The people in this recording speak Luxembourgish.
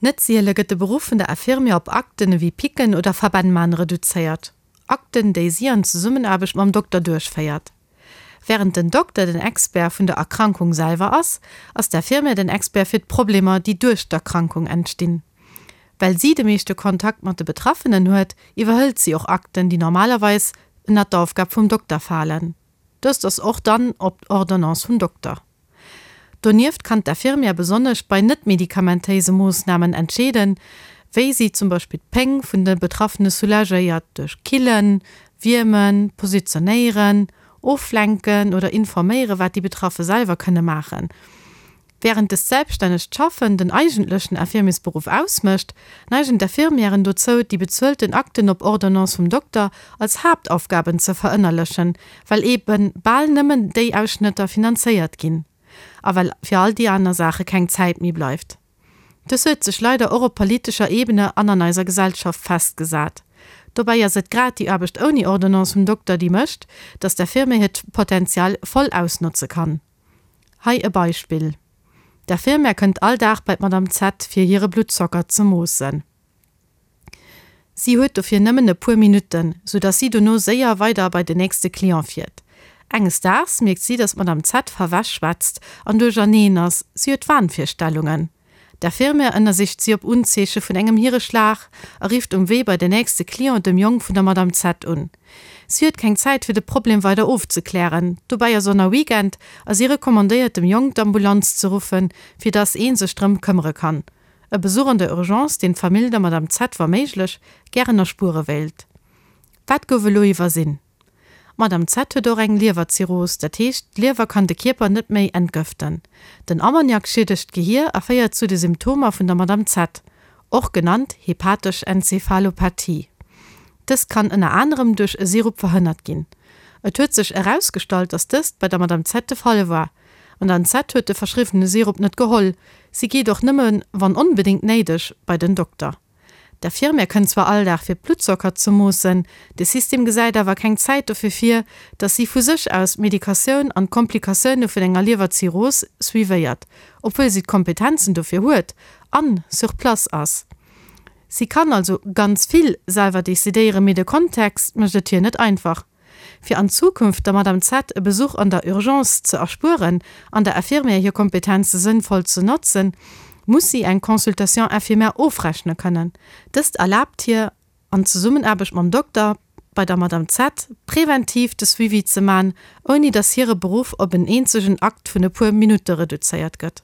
Net siele gëtt de Beruff vun der Infirmière op Akten ewéi Picken oder Verbänn man reduzéiert, Akten, déi si an Zesummenaarbecht mam Dokter duerchféiert. Wärend den Dokter den Expert vun der Erkrankung selwer ass, ass d'Infirmière den Expert fir d'Problemer, déi duerch d'Erkrankung entstinn. Well si de meeschte Kontakt mat de Betraffenen huet, iwwerhëlt si och Akten, déi normalerweis ënnert d'Aufgab vum Dokter falen. Dëst ass och dann op Ordonnance vum Dokter. Donieft kann d'Infirmière besonnesch bei net-medikamentéise Moossnamen entscheeden, wéi si zum Beispill d'Péng vun de Betraffene soulagéiert, duerch Killen, Wiermen, Positionéieren, Oflenken oder informéieren, wat déi Betraffe selwer kënne maachen. Wärend dëst selbststännegt Schaffen den eigentlechen Infirmiersberuff ausmécht, neigen d'Infirmièren dozou, déi bezuelten Akten op Ordonnance vum Dokter als Haaptaufgaben ze verënnerlechen, well eebe bal nëmmen déi Ausschnëtter finanzéiert ginn a well fir all déi aner Saache keng Zäit méi bleift. Dës huet sech leider och op politescher Ebene an an eiser Gesellschaft festgesat. Dobäi ass et grad déi Aarbecht ouni Ordonnance vum Dokter, déi mécht, dass d'Infirmière hiert Potential voll ausnotze kann. Hei e Beispill, D'Infirmière kënnt all Dag bei d'Madame Z fir hire Bluttzocker ze moossen. Si huet dofir nëmmen e puer Minutten, sou dass si dono séier weider bei den nächste Client fiert. Enges Daags mierkt si, dass d'Madame Z verwäsch schwätzt an duercherneen ass, si huet Wahnvirstellungen. D'Infirmière ënnersicht si op Unzeeche vun engem Hireschlag a rifft um Wee bei den nächste Client, dem Jong vun der Madame Z un. Si huet keng Zäit fir de Problem weider ofzeklären, dobäi ass och nach Weekend a si recommandéiert dem Jong d'Ambulanz ze ruffen, fir dass ee sech drëm këmmere kann. E Besuch an der Urgence, deen d'Famill der Madame Z wa méiglech gären erspuere wéilt. Wat gouf elo iwwersinn? D'Madame Z huet och eng Liewerzirrhos, dat heescht, d'Liewer kann de Kierper net méi entgëften. Den Ammoniak schiedegt d'Gehier a féiert zu de Symptomer vun der Madame Z, och genannt hepatesch Enzephalopathie. Dëst kann ënner anerem duerch e Sirup verhënnert ginn. Et huet sech erausgestallt, dass dëst bei der Madame Z de Fall war. D'Madame Z huet de verschriwwene Sirup net geholl. Si geet och nëmme wann onbedéngt néideg bei den Dokter. D'Infirmière kënnt zwar all Dag fir d'Bluttzocker ze moossen, de System gesäit awer keng Zäit dofir vir, dass si vu sech aus d'Medikatioun an d'Komplikatioune vun enger Liewerzirrhos suivéiert, obwuel si d'Kompetenzen dofir huet an sur place ass. Si kann also ganz vill selwer decidéieren, mee de Kontext mécht et hir net einfach. Fir an Zukunft der Madame Z e Besuch an der Urgence ze erspueren an der Infirmière hir Kompetenze sënnvoll ze notzen, muss si eng Consultation infirmière ofrechne kënnen. Dëst erlaabt hir, an Zesummenaarbecht mam Dokter, bei der Madame Z präventiv de Suivi ze man, ouni dass hire Beruff op en eenzegen Akt vun e puer Minutte reduzéiert gëtt.